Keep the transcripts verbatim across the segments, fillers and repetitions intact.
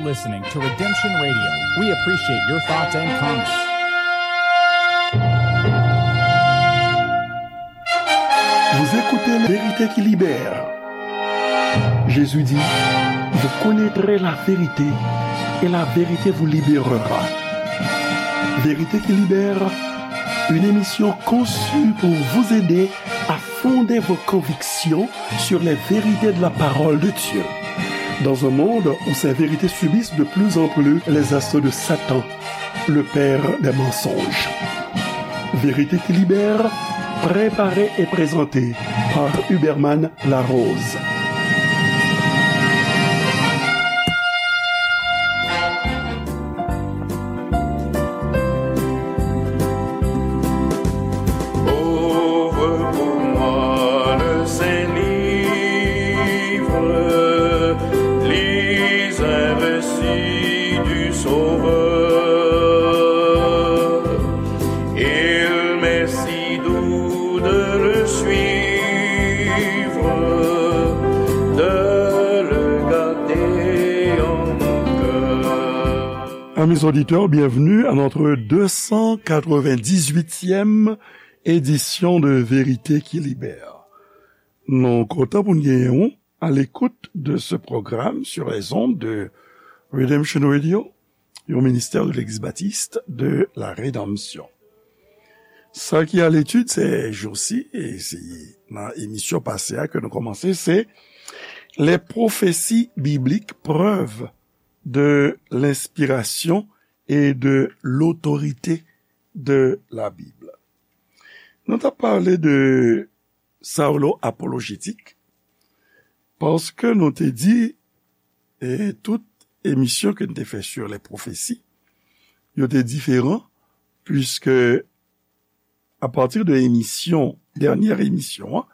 Listening to Redemption Radio. We appreciate your thoughts and comments. Vous écoutez La Vérité qui libère. Jésus dit, vous connaîtrez la vérité et la vérité vous libérera. Vérité qui libère, une émission conçue pour vous aider à fonder vos convictions sur les vérités de la parole de Dieu. Dans un monde où ces vérités subissent de plus en plus les assauts de Satan, le père des mensonges. Vérité qui libère, préparée et présentée par Huberman Larose. Ouvre pour moi le Saint-Livre, lis un récit du Sauveur. Il m'est si doux de le suivre, de le garder en mon cœur. Amis auditeurs, bienvenue à notre deux cent quatre-vingt-dix-huitième édition de Vérité qui Libère. Nou kontan pou n genyen w à l'écoute de ce programme sur les ondes de Redemption Radio, yon ministè de Legliz Batis de la Redanmsyon. Sa ki a letid se jousi, e se nan emisyon pase a ke nou kòmanse, se les prophéties bibliques, preuves de l'inspiration et de l'autorité de la Bible. Nou t ap pale de Saulo apolojetik, paske nou te di, e tout emisyon ke n te fè sur les prophéties, yo te diferan, puiske a partir de emisyon, dènyè emisyon an,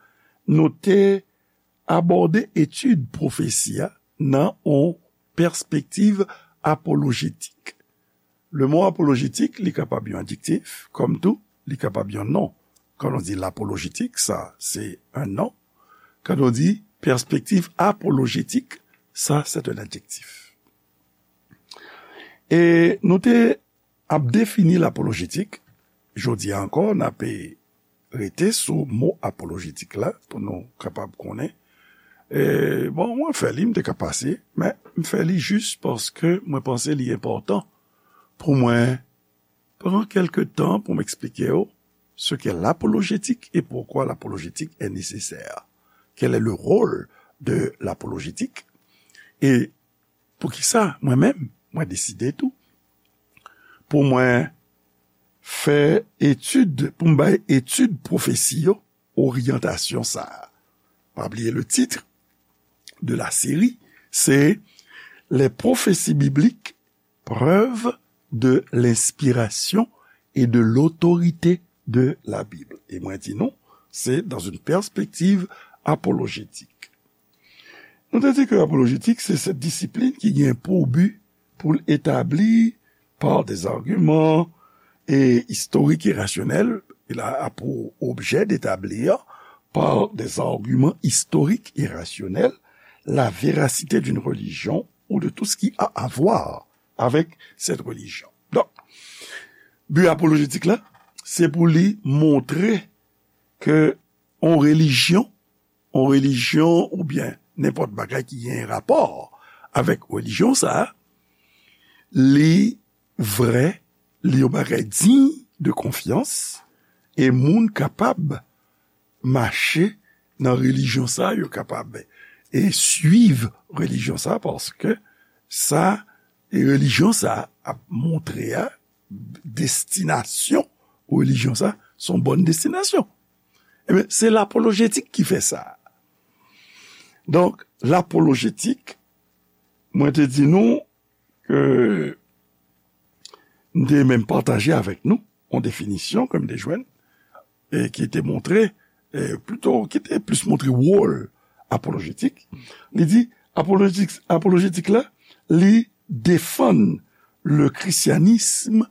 nou te abòde etid pwofesi a nan yon pèspektiv apolojetik. Le mo apolojetik, li kapab yon adjektif, kòm tou, li kapab yon non. Kan nou di lapolojetik, sa, se yon non. Kan nou di pèspektiv apolojetik, sa, se yon adjektif. E nou te ap defini lapolojetik. Jodi a ankò, n ape rete sou mo apolojetik la pou nou kapab konnen. E, bon, mwen fè li, m te ka pase, men m fè li jis paske mwen panse li enpòtan pou mwen pran kèlke tan pou m eksplike w ce qu'est l'apologétique et pourquoi l'apologétique est nécessaire. Quel est le rôle de l'apologétique? E poukisa mwen menm, mwen deside tou pou mwen fè etid, pou m bay etid pwofesi yo oryantasyon sa a. Pa bliye le titre de la série, se Les prophéties bibliques, preuves de l'inspiration et de l'autorité de la Bible. E mwen di nou, se dans une perspective apologétique. Nou te di ke apolojetik se sèt disiplin ki gen pou bi pou l etabli par des arguments et historiques et rationnels, il a pour objet d'établir par des arguments historiques et rationnels la véracité d'une religion ou de tout ce qui a à voir avec cette religion. Donk, bi apolojetik la, se pou li montre ke yon relijyon, yon relijyon oubyen nenpòt bagay ki gen rapò avèk relijyon sa a, li vrè, li yon bagay diy de konfyans, e moun kapab mache nan relijyon sa, yo kapab e swiv relijyon sa, paske sa, e relijyon sa ap montre a, destinasyon relijyon sa, se yon bòn destinasyon. Ebyen, se lapolojetik ki fè sa. Donk, lapolojetik, mwen te di nou ke m te menm pataje avèk nou yon definisyon ke m te jwenn, e ki te montre, e plito, ki te plis montre wòl apolojetik. Li di, apolojetik, apolojetik la, li defann le christianisme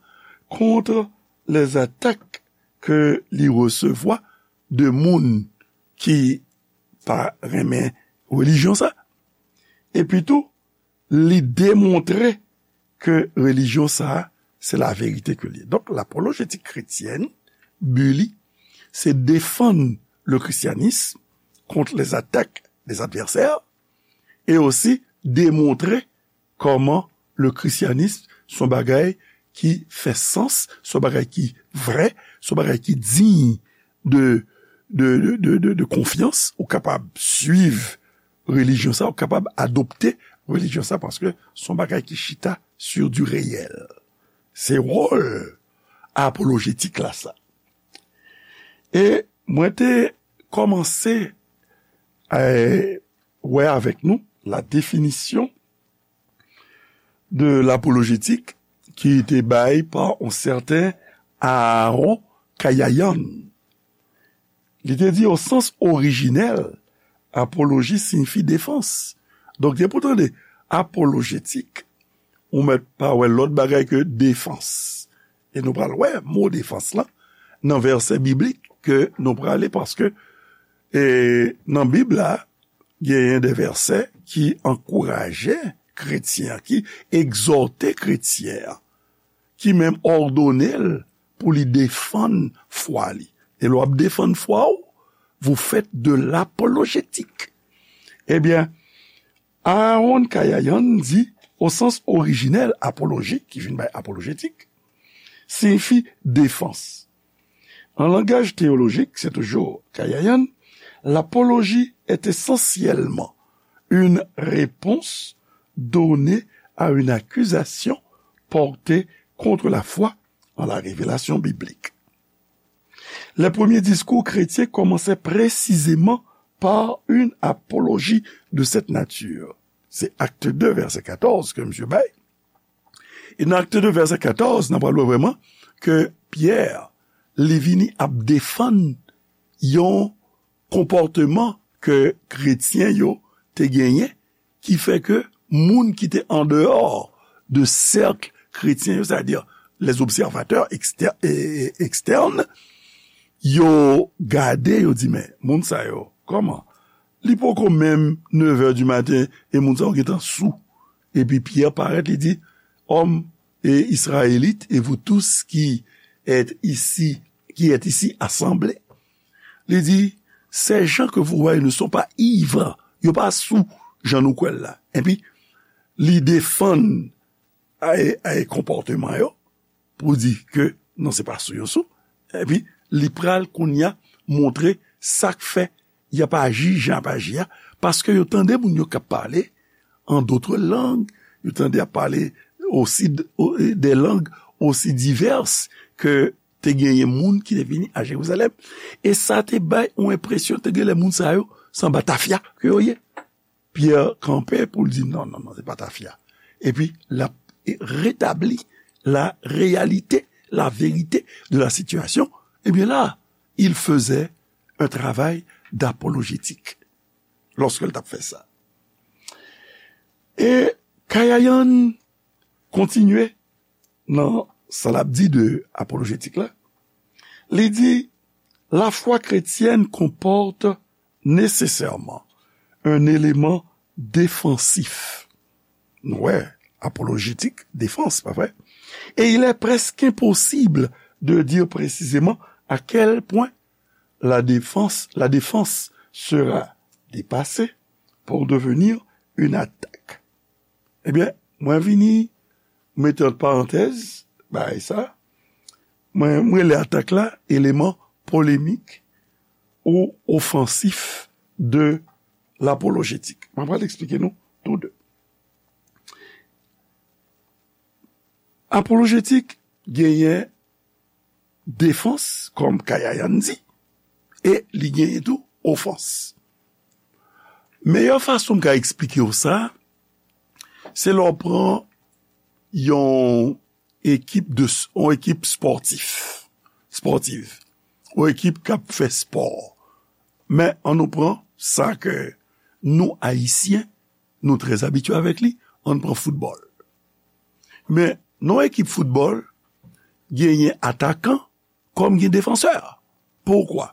contre les attaques ke li resevwa de moun ki pa renmen relijyon sa. Epi tou, li demontre ke relijyon sa a, se laverite ke li ye. Donk, lapolojetik kretyèn, bi li, se defann le christianisme contre les attaques des adversaires, e osi demontre kòman le christianisme se yon bagay ki fè sans, se yon bagay ki vrè, se yon bagay ki diy de, de, de, de, de, de konfyans, ou kapab swiv relijyon sa, ou kapab adopte relijyon sa, paske se yon bagay ki chita sur du réel. Se wòl apolojetik la sa. E mwen te kòmanse, eh, wè avèk nou la définition de l'apolojetik ki te bay pa yon sèten Aaron Kayayan. Li te di, au sens originel, apoloji siyifi defans. Donk, depi w tande apolojetik, ou mèt pa wè lòt bagay ke defans. E nou pral wè mo defans lan nan vèsè biblik ke nou prale, paske, e, nan Bib la, genyen de vèsè ki ankouraje kretyen an, ki egzòte kretyen an, ki menm òdone l pou li defann fwa li. E lè w ap defann fwa w, vous faites de l'apologetique. Ebyen, Aaron Kayayan di, au sens originel, apoloji, ki vin bay apolojetik, siyifi defans. En langage théologique, c'est toujours Kayayan, l'apologie est essentiellement une réponse donnée à une accusation portée contre la foi en la révélation biblique. Les premiers discours chrétiens commençaient précisément par une apologie de cette nature. Se Acte deux, vèsè katòz ke misye bay. E nan Acte deux, vèsè katòz, n ap wè vrèman ke Pyè, li vini ap defann yon konpòteman ke kretyen yo te genyen, ki fè ke moun ki te andeyò de sèk kretyen yo, sètadi les observateurs exter-, e, e, externes, yo gade, yo di, "Men, moun sa yo, kòman? Li poko menm nevè di maten, e moun sa yo gentan sou." Epi Pyè parèt, li di, "Hommes et Israélites, et vous tous qui êtes ici, qui êtes ici assemblés." Li di, "Ces gens que vous voyez ne sont pas ivres." Yo pa sou, jan nou kwè l la. Epi, li defann ay, ay konpòteman yo, pou di ke non, se pa sou yo sou. Epi, li pral kounye a montre sa k fè y ap aji jan y ap aji a, paske yo tande moun yo k ap pale en d'autres langues, yo tande y ap pale osi d-, o-, des langues aussi diverses ke te genyen moun ki te vini a Jerizalèm. E sa te bay yon enpresyon, te gen lè moun sa yo, se anba tafya ke yo ye. Pyè kanpe pou l di, "Non, non, non, se pa tafya." Epi, l ap retabli la réalité, la vérité de la situation. Ebyen la, il faisait un travail d'apologétique lorsque l t ap fè sa. E Kayayan kontinye nan sa l ap di de apolojetik la. Li di, la foi chrétienne comporte nécessairement un élément défensif. Nou wè, apolojetik, defans, pa vre? Et il est presque impossible de dire précisément à quel point la défense, la défense sera dépassée pour devenir une attaque. Ebyen, mwen vini mete ant parantèz bagay sa. Mwen, mwen rele atak la eleman polemik ou ofansif de lapolojetik. Mwen pral eksplike nou tou de. Apolojetik genyen defans, kòm Kayayan di, e li genyen tou ofans. Meyè fason m ka eksplike w sa, se lè w pran yon ekip de s-, yon ekip spòtif, spòtiv, yon ekip k ap fè spò. Men, ann nou pran sa ke nou, Ayisyen, nou trè abitye avèk li, ann pran foutbòl. Men, nan yon ekip foutbòl, genyen atakan kòm gen defansè. Poukwa?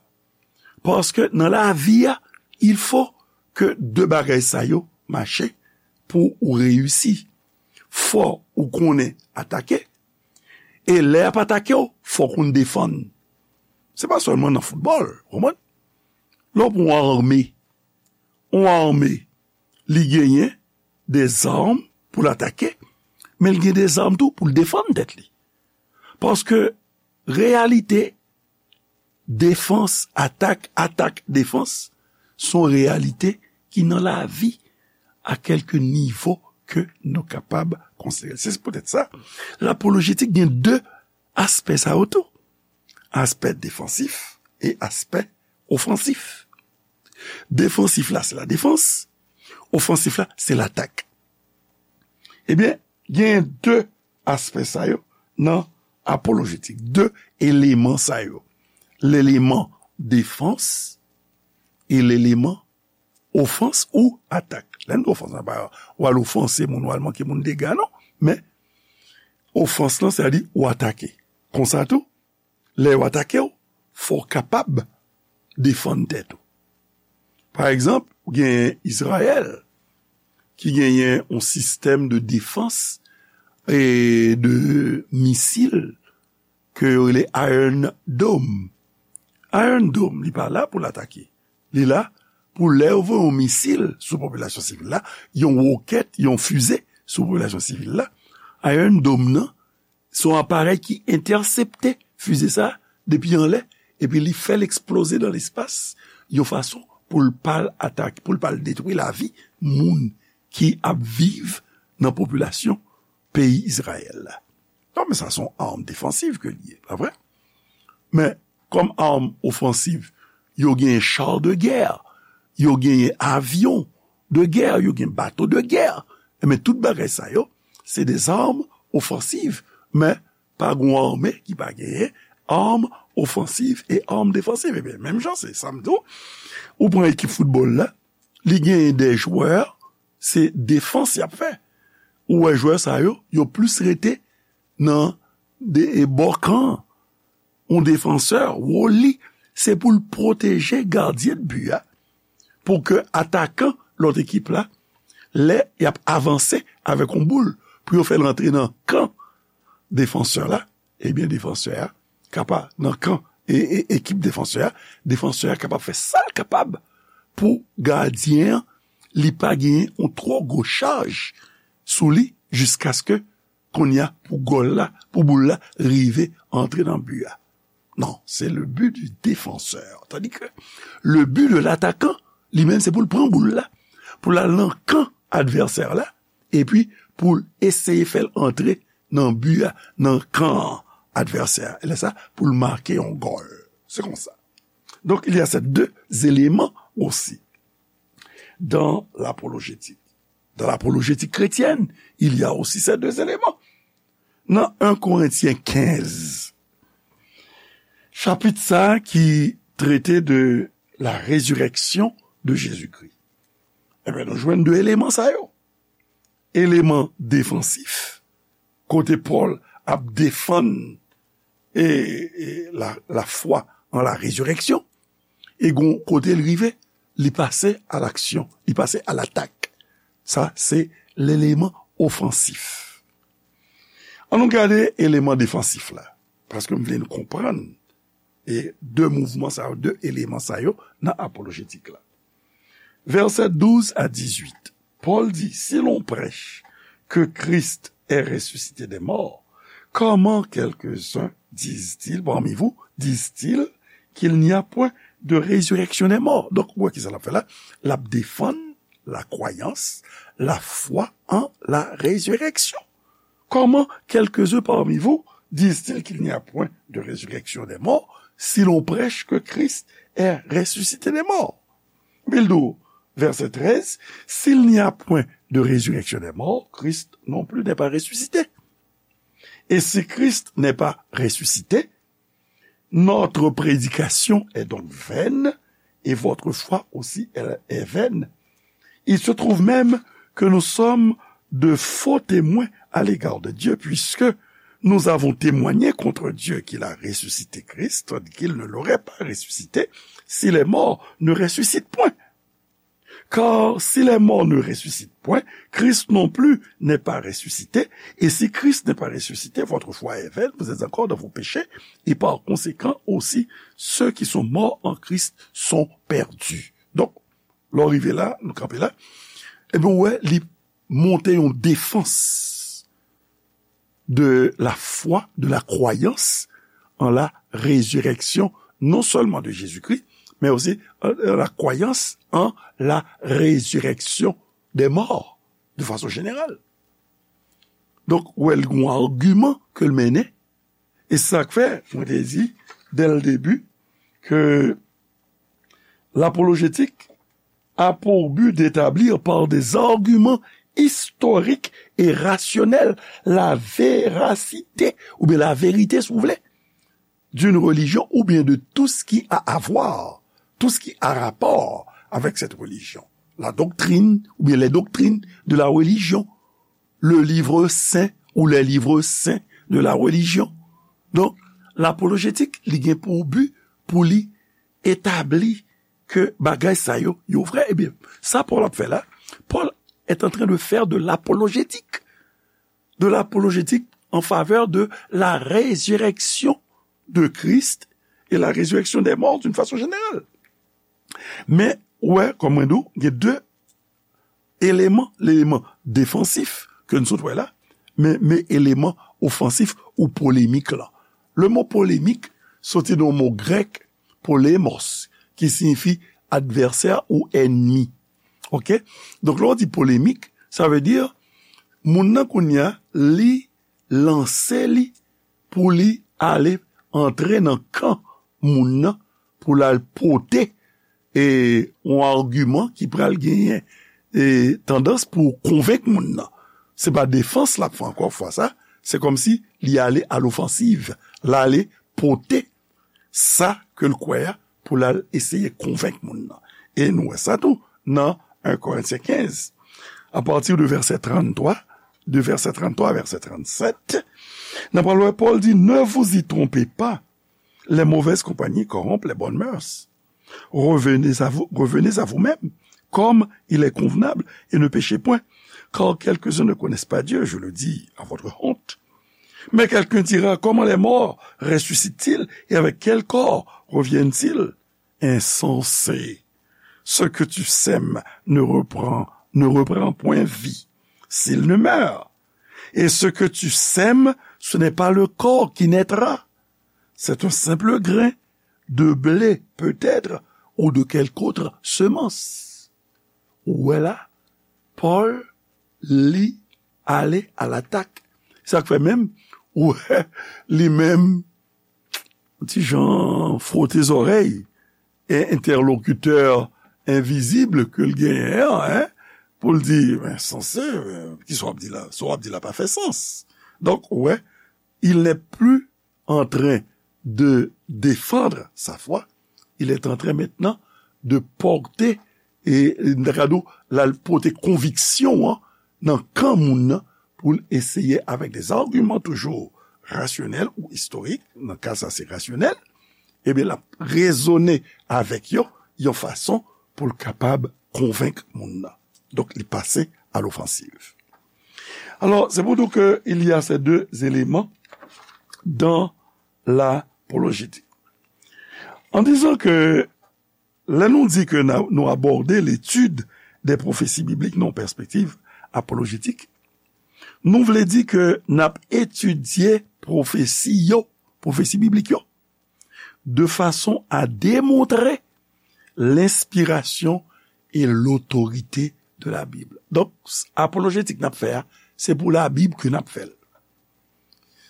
Paske nan lavi a, il faut que de bagay sa yo mache pou ou reyisi, fò ou konnen atake. E lè y ap atake w, fò w konn defann. Se pa sèlman nan foutbòl, ou konprann? Lè w pran yon ame, yon ame, li genyen de zam pou l atake, men l gen de zam tou pou l defann tèt li. Paske reyalite defans, atak, atak, defans, se yon reyalite ki nan lavi a kèlke nivo ke nou kapab konsidere. Se poutèt sa, lapolojetik gen de aspè sa yo tou. Aspè defansif e aspè ofansif. Defansif la, se la defans. Ofansif la, se latak. Ebyen, gen de aspè sa yo nan apolojetik. De eleman sa yo. Leleman defans e leleman ofans ou atak. Lè n di ofans, se pa w al ofanse moun, w al manke moun dega, non. Men, ofans lan, sètadi ou atake. Konsa tou, lè yo atake w, fò w kapab defann tèt ou. Pa egzanp, ou genyen Izrayèl ki genyen yon sistèm de defans e de misil ke yo rele Iron Dome. Iron Dome, li pa la pou l atake. Li la pou lè yo voye yon misil sou popilasyon sivil la, yon wokèt, yon fize sou popilasyon sivil la. Iron Dome nan, se yon aparèy ki entèsepte fize sa a depi anlè, epi li fè l eksploze nan lespas, yon fason pou l pa l atake, pou l pa l detwi lavi moun ki ap viv nan popilasyon peyi Izrayèl la. Non, men sa se yon arm defansiv ke l ye, pa vre? Men, kòm arm ofansiv, yo genyen char de guerre, yo genyen avyon de guerre, yo gen bato de guerre. Enben, tout bagay sa yo, se de zam ofansiv, men pa gon ame ki pa genyen arm ofansiv e arm defansiv. Ebyen, menm jan, se sa m di w, ou pran ekip foutbòl la, li genyen de jwè, se defans y ap fè. Ou wè jwè sa yo, yo plis rete nan de, e, bò kan. Yon defansè, wòl li, se pou l pwoteje gadyen de bi a, pou ke atakan lòt ekip la, lè y ap avanse avèk yon boul, pou yo fè l rantre nan kan defansè la, ebyen, defansè a kapab, nan kan e, e, ekip defansè a, defansè a kapab fè sa l kapab pou gadyen an, li pa genyen yon twò gwo chaj sou li, jiskaske kounye a pou gòl la, pou boul la rive antre nan bi a. Non, c'est le but du défenseur. Tandis que le but de l'attaquant, li menm, se pou l pran boul la, pou l al nan kan advèsè la, epi pou l eseye fè l antre nan bi a, nan kan advèsè a. E lè sa, pou l make yon gòl. Se konsa. Donc, il y a ces deux éléments aussi dans l'apologétique. Dans l'apologétique chrétienne, il y a aussi ces deux éléments. Nan en Korentyen kenz, chapit sa a ki trete de la résurrection de Jésus-Christ, enben, nou jwenn de eleman sa yo. Eleman defansif, kote Pòl ap defann e, e la, la foi en la résurrection. E gon kote l rive, li pase a laksyon, li pase a latak. Sa, se leleman ofansif. An nou gade eleman defansif la, paske m vle nou konprann e de mouvman sa yo, de eleman sa yo nan apolojetik la. Vèsè douz a dizuit, Pòl di, si l'on prêche que Christ est ressuscité des morts, comment quelques-uns disent-ils parmi vous, disent-ils qu'il n'y a point de résurrection des morts? Donk, ou wè kisa l ap fè la? L ap defann la kwayans, la foi en la résurrection. Comment quelques-uns parmi vous disent-ils qu'il n'y a point de résurrection des morts si l'on prêche que Christ est ressuscité des morts? Epi l di w, vèsè trèz, s'il n'y a point de résurrection des morts, Christ non plus n'est pas ressuscité. Et si Christ n'est pas ressuscité, notre prédication est donc vaine, et votre foi aussi est vaine. Il se trouve même que nous sommes de faux témoins à l'égard de Dieu, puisque nous avons témoigné contre Dieu qu'il a ressuscité Christ, qu'il ne l'aurait pas ressuscité si les morts ne ressuscitent point. Car si les morts ne ressuscitent point, Christ non plus n'est pas ressuscité. Et si Christ n'est pas ressuscité, votre foi est vaine, vous êtes encore dans vos péchés, et par conséquent aussi, ceux qui sont morts en Christ sont perdus. Donk, lè w rive la, nou kanpe la, ebyen, ou wè, li monte yon defans de la foi, de la croyance en la résurrection, non seulement de Jésus-Christ, mais aussi euh, la croyance en la résurrection des morts, de façon générale. Donk, ou wè, l gen yon agiman ke l mennen, e se sa k fè, mwen te di, dès le début, que l'apologétique a pour but d'établir par des arguments historiques et rationnels la véracité, ou bien la vérité, si vous voulez, d'une religion, ou bien de tout ce qui a à voir, tout ce qui a rapport avec cette religion. La doctrine, ou bien les doctrines de la religion, le livre saint ou les livres saints de la religion. Donk, lapolojetik, li gen pou bi pou li etabli ke bagay sa yo, yo vrè. Ebyen, sa Pòl ap fè la, Paul est en train de faire de l'apologétique, de l'apologétique en faveur de la résurrection de Christ et la résurrection des morts d'une façon générale. Men, ou wè, kòm mwen di w, gen de eleman, eleman defansif ke n sot wè la, men, men eleman ofansif ou polemik la. Le mo polemik soti nan mo grèk polemos, ki siyifi advèsè ou ènmi. Oke? Donk, lè w di polemik, sa vle di, moun nan kounye a, li lanse li pou li ale antre nan kan moun nan, pou l al pote e yon agiman ki pral genyen e tandans pou konvenk moun nan. Se pa defans l ap fè ankò fwa sa, se kòmsi li ale alofansiv, l ale pote sa ke l kwè a pou l al eseye konvenk moun nan. E nou wè sa tou nan en Korentyen kenz, apati de vèsè tranntwa, de vèsè tranntwa a vèsè trannsèt, n ap pral wè Pòl di, ne vous y trompez pas, les mauvaises compagnies corrompent les bonnes mœurs. Revenez à vous, revenez à vous-même, comme il est convenable, et ne péchez point, car quelques-uns ne connaissent pas Dieu, je le dis à votre honte. Mais quelqu'un dira, comment les morts ressuscitent-ils, et avec quel corps reviennent-ils? Insensé, ce que tu sèmes ne reprend, ne reprend point vie, s'il ne meurt. Et ce que tu sèmes, ce n'est pas le corps qui naîtra, c'est un simple grain de blé peut-être ou de quelque autre semence. Ou wè la, Pòl, li ale alatak. Sa k fè menm, ou wè, li menm, ti jan fwote zòrèy, e entèlokitè envizib ke l genyen an, en, pou l di, men, sanse, men, kisa w ap di la? Sa w ap di la pa fè sans. Donk, ou wè, il n'est plus en train de défendre sa foi, il est en train maintenant de porter, e m ta ka di w, l al pote konviksyon an nan kan moun nan, pou l eseye, avec des arguments toujours rationnels ou historiques, nan ka sa se rasyonèl, ebyen, l ap rezone avèk yo yon fason pou l kapab konvenk moun nan. Donk, li pase à l'offensive. Alors, c'est pour dire qu'il y a ces deux éléments dans l'apologétique. En disant que lè nou di ke nou abòde l'étude des prophéties bibliques nan pèspektiv apolojétik, nou vle di ke n ap etidye pwofesi yo, pwofesi biblik yo, de façon à démontrer l'inspiration et l'autorité de la Bible. Donk, apolojétik n ap fè a, se pou Labib ke n ap fè l.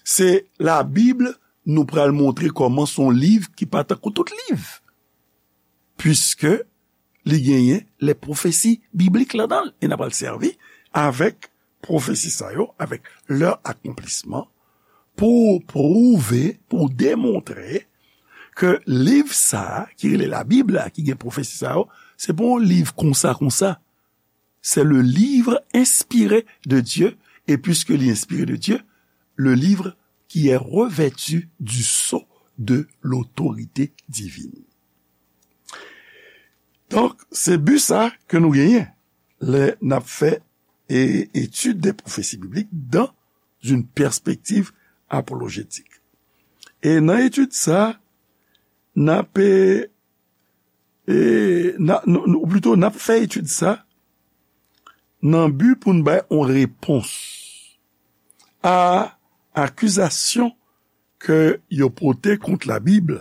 Se Labib, nou pral montre kòman se yon liv ki pa tankou tout liv. Puiske li genyen les prophéties bibliques ladan l. E n ap al sèvi avèk pwofesi sa yo, avec leur accomplissement, pou pwouve, pou demontre ke liv sa a, ki rele Labib la, ki gen pwofesi sa yo, se pa yon liv konsa, konsa. C'est le livre inspiré de Dieu, et puisque il est inspiré de Dieu, le livre qui est revêtu du sceau de l'autorité divine. Donk, se bi sa ke nou genyen lè n ap fè e, étude des prophéties bibliques dans une perspective apologétique. E nan etid sa, n ap, e, e, n a, nou, nou, ou plito, n ap fè etid sa nan bi pou n bay yon repons a akizasyon ke yo pote kont Labib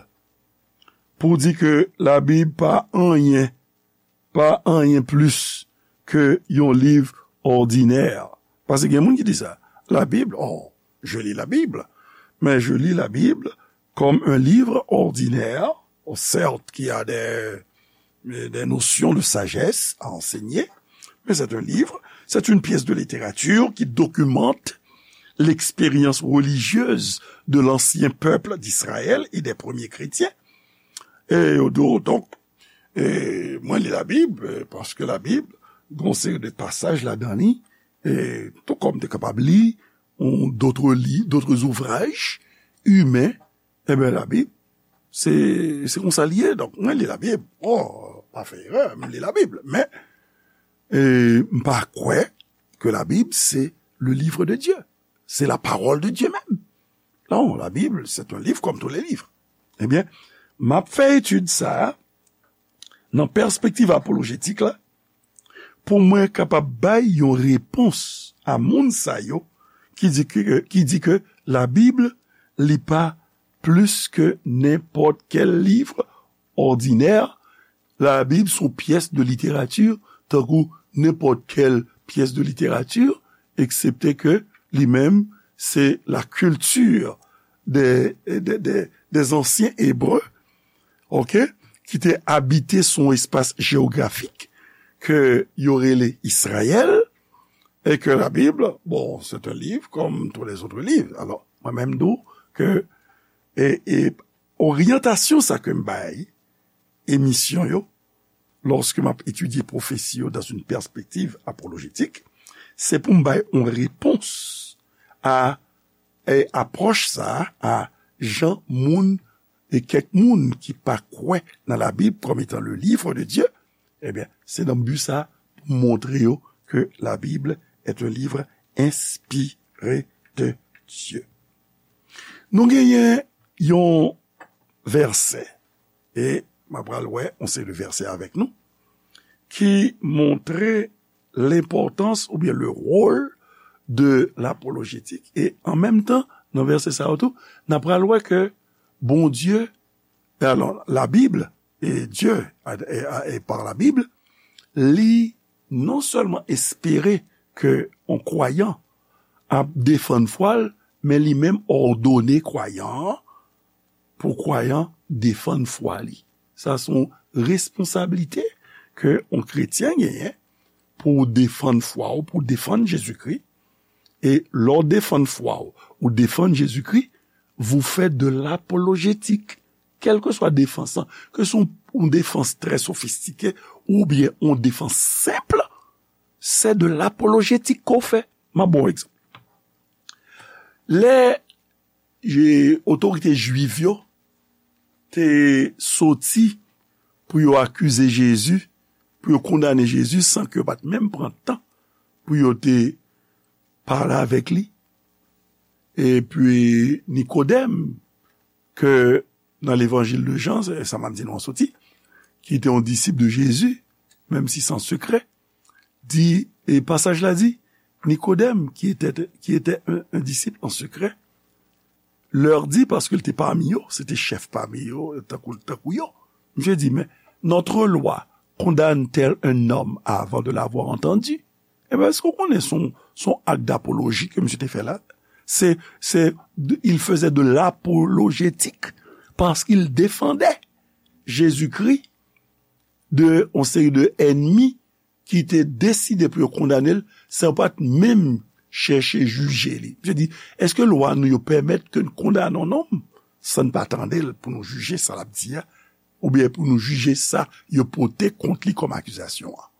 pou di ke Labib pa anyen, pa anyen plis ke yon liv òdinè. Paske gen moun ki di sa, la Bible, oh, je lis la Bible, mais je lis la Bible comme un livre ordinaire, certes qu'il y a des, des notions de sagesse à enseigner, mais c'est un livre, c'est une pièce de littérature qui documente l'expérience religieuse de l'ancien peuple d'Israël et des premiers chrétiens. E yo di w, donk, e, mwen li Labib, e, paske Labib, gen yon seri de pasaj ladan li, e, tou kòm te kapab li, yon, d'autres li, d'autres ouvrages humains, enben, Labib, se, se konsa li ye. Donk, mwen li Labib. Oh, pa fè erè, m li Labib. Men, e, m pa kwè ke Labib se le livre de Dieu. C'est la parole de Dieu même. Non, la Bible, c'est un livre comme tous les livres. Ebyen, m ap fè etid sa a nan pèspektiv apolojetik la, pou mwen kapab bay yon repons a moun sa yo ki di ke, ki di ke Labib, li pa plis ke nenpòt kèl liv òdinè. Labib se yon pyès de literati, tankou nenpòt kèl pyès de literati, eksepte ke li menm, se la kilti de, de, de, des anciens Hébreux, ok, ki te abite sou yon espas jewografik ke yo rele Izrayèl, e ke Labib, bon, c'est un livre comme tous les autres livres. Alò, mwen menm di w ke, e, e oryantasyon sa ke m bay emisyon yo, lòske m ap etidye pwofesi yo dans une perspective apologétique, se pou m bay yon repons a, e apwòch sa a, a jan moun e kèk moun ki pa kwè nan Labib comme étant le livre de Dieu, ebyen, se nan bi sa pou m montre yo ke Labib est un livre inspiré de Dieu. Nou genyen yon vèsè, e m ap pral wè yon seri de vèsè avèk nou, ki montre lenpòtans oubyen le rôle de l'apologétique. E an menm tan, nan vèsè sa yo tou, n ap pral wè ke Bondye, e alò, Labib, e Dye, e, e, e par la Bible, li non sèlman espere ke yon kwayan ap defann fwa l, men li menm òdone kwayan an pou kwayan defann fwa li. Sa se yon responsablite ke yon kretyen genyen pou w defann fwa w, pou w defann Jezikri. E lè w defann fwa w, ou defann Jezikri, vous faites de l'apologétique. Kèlkeswa defans lan, ke se yon, yon defans trè sofistike oubyen yon defans senp, c'est de l'apologétique ke w fè. M ap ba w egzanp. Lè je, otorite jwif yo te soti pou yo akize Jezi, pou yo kondane Jezi, san ke yo pa t menm pran tan pou yo te pale avèk li. Epi Nikodèm, ke nan Levanjil de Jan, se sa m ap di nou an soti, ki te yon disip de Jezi, menm si se an sekrè, di, e pasaj la di, Nikodèm, qui était, qui était un, un disciple en secret, leur dit, paske l te pami yo, se te chèf pami yo, tankou, tankou yo. Misye di, mais notre loi condamne-t-elle un homme avant de l'avoir entendu? Ebyen, èske w konnen se yon, se yon ak dapoloji ke misye te fè la? Se, se, il faisait de l'apologétique, parce qu'il défendait Jésus-Christ de yon seri de ènmi ki te deside pou yo kondane l, san pa t menm chèche jije li. Misye di, èske lwa nou yo pèmèt ke n kondane yon nonm san n pa tande l pou nou jije sa l ap di a, oubyen pou nou jije sa yo pote kont li kòm akizasyon an?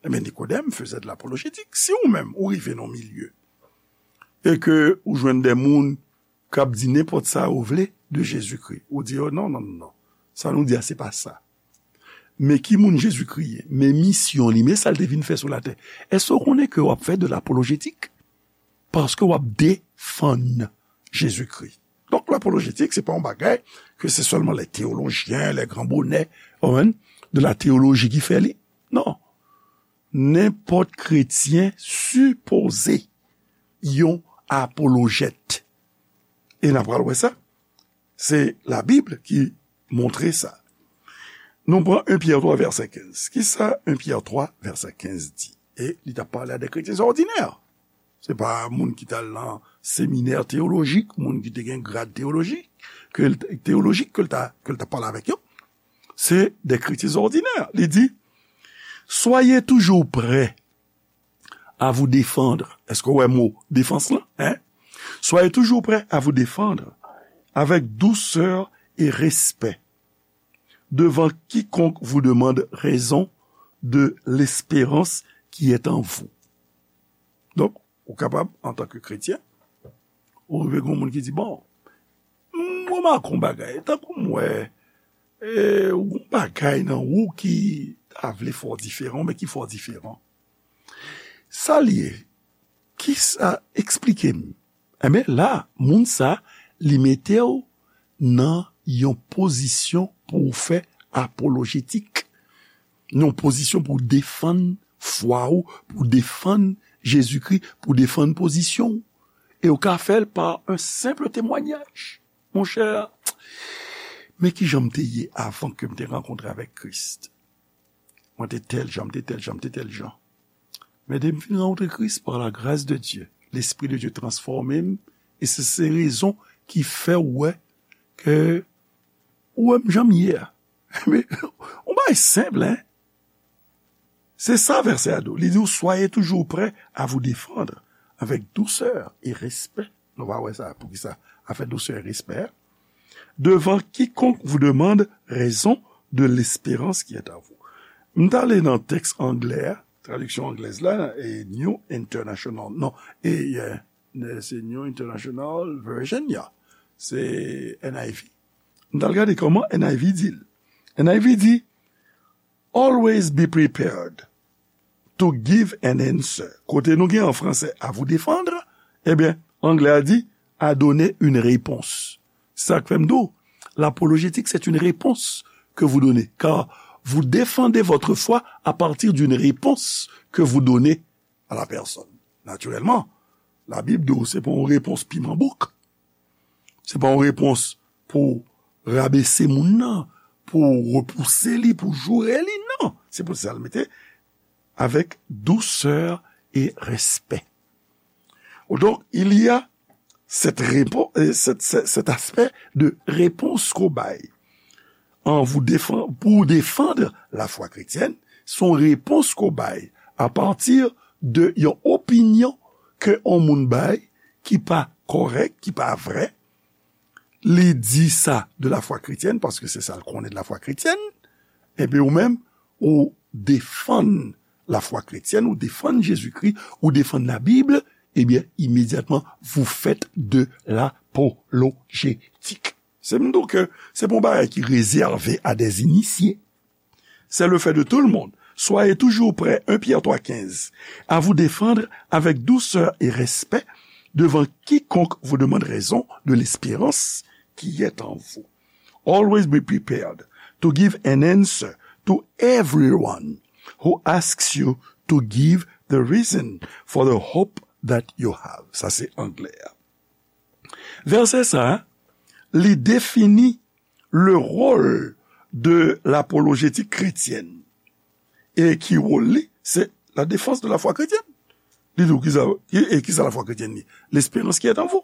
Ebyen, Nikodèm faisait de l'apologétique. Si ou menm, ou rive nan yon milye, e ke ou jwenn de moun k ap di nenpòt sa yo vle de Jezikri, ou di yo, non, non, non, non. Sa nou di a, se pa sa. men ki moun Jezikri ye, men misyon li, men sa l te vin fè sou latè, èske w konnen ke w ap fè de lapolojetik? Paske w ap defann Jezikri. Donk, lapolojetik, se pa yon bagay ke se sèlman lè teyolojyen, lè gran bonè, w konprann, de la teyoloji ki fè li. Non. Nenpòt kretyen sipoze yon apolojèt. E n a pral wè sa. Se Labib ki montre sa. Nou pran en Pyè twa vèsè kenz. Kisa en Pyè twa vèsè kenz di? E li t ap pale a de kretyen òdinè. Se pa moun ki t al nan seminè teyolojik, moun ki te gen grad teyolojik, ke l, teyolojik ke l ta, ke l t ap pale avèk yo. Se de kretyen òdinè. Li di, Soyez toujours prêts à vous défendre. Èske w wè mo defans lan? Hein? Soyez toujours prêts à vous défendre avec douceur et respect devant quiconque vous demande raison de l'espérance qui est en vous. Donk, ou kapab, antanke kretyen, ou rive gen moun ki di, bon, m remake yon bagay, tankou m wè, e, yon bagay nan ou ki ta vle fè w diferan, men ki fè w diferan. Sa l ye? Kisa, eksplike m. Enben, la, moun sa, li mete w nan yon pozisyon pou w fè apolojetik. Nan yon pozisyon pou w defann fwa w, pou w defann Jezikri, pou w defann pozisyon w. E w ka fè l pa yon senp temwayaj. Monchè, men ki jan m te ye avan ke m te rankontre avèk Kris. Mwen te tèl jan, m te tèl jan, m te tèl jan. Men depi m fin rankontre Kris, par la grâce de Dieu, Lespri de Dye transfòme m, e se, se rezon ki fè w wè ke ou wè m jan m ye a. Men, yon bagay senp, hein? Se sa vèsè a di w. Li di w, Soyez toujours prêts à vous défendre avec douceur et respect. Nou va wè sa, poukisa, avec douceur et respect, devant quiconque vous demande raison de l'espérance qui est en vous. M t ale nan tèks anglè a, tradiksyon anglèz la, e New International, non, e, euh, se New International Version, ya. Se N I V. M t al gade kòman N I V di l. N I V di, Always be prepared to give an answer. Kote nou gen an franse, à vous défendre, ebyen, anglè a di, à donner une réponse. Sa k fè m di w, l'apologétique, c'est une réponse que vous donnez, car vous défendez votre foi à partir d'une réponse que vous donnez à la personne. Naturèlman, Labib di w se pa yon repons piman bouk. Se pa yon repons pou rabese moun nan, pou repouse li, pou joure li, non. Se pou sa l mete avec douceur et respect. Donc, il y a cette répo-, euh, cette, cette, cet aspect de réponse ke w bay. An vou defan-, pou w defann lafwa kretyèn, se yon repons ke w bay apati de yon opinyon ke yon moun bay ki pa kòrèk, ki pa vrè. Li di sa de lafwa kretyèn, paske se sa l konnen de lafwa kretyèn. Epi ou menm, ou defann lafwa kretyèn, ou defann Jezikri, ou defann Labib, ebyen, imedyatman, vous faites de l'apologétique. Se m di w ke se pa yon bagay ki rezève à des initiés. C'est le fait de tout le monde. Soyez toujours prêts, un Pierre trois quinze, à vous défendre avec douceur et respect devant quiconque vous demande raison de l'espérance qui est en vous. Always be prepared to give an answer to everyone who asks you to give the reason for the hope that you have. Sa se anglè a. Vèsè sa a, li defini le rôle de l'apologétique chrétienne. E ki wòl li? C'est la défense de la foi chrétienne. Li di w kisa, e, e kisa lafwa kretyèn li? L'espérance qui est en vous.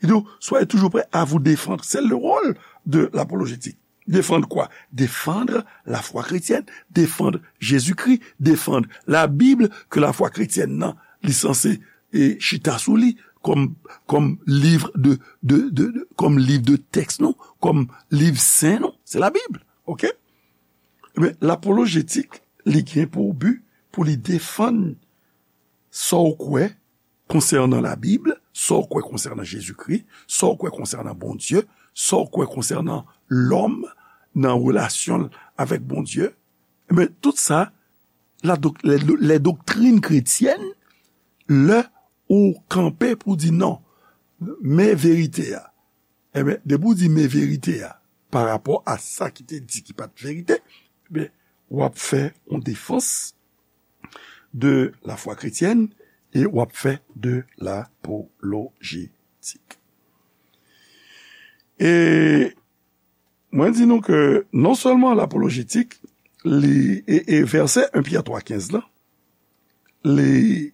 Li di w, soyez toujours prêts à vous défendre. C'est le rôle de l'apologétique. Défendre quoi? Défendre la foi chrétienne, défendre Jésus-Christ, défendre la Bible, ke lafwa kretyèn nan, li sanse, e, chita sou li, kòm, kòm liv de, de, de, de, kòm liv de tèks nou, kòm liv sen nou, se Labib, oke? Ebyen, lapolojetik, li gen pou bi pou li defann sa w kwè konsènan Labib, sa w kwè konsènan Jezikri, sa w kwè konsènan Bondye, sa w kwè konsènan lòm nan relasyon l avèk Bondye, Men tout sa, la dok- les, les doctrines chrétiennes, lè ou kanpe pou di non, men verite a. Ebyen, depi ou di men verite a, pa rapò a sa ki te di ki pa t verite, ebyen, w ap fè yon defans de la foi chrétienne e w ap fè de lapolojetik. E mwen di nou ke non sèlman lapolojetik, li, e, e vèsè en Pyè twa kenz la, li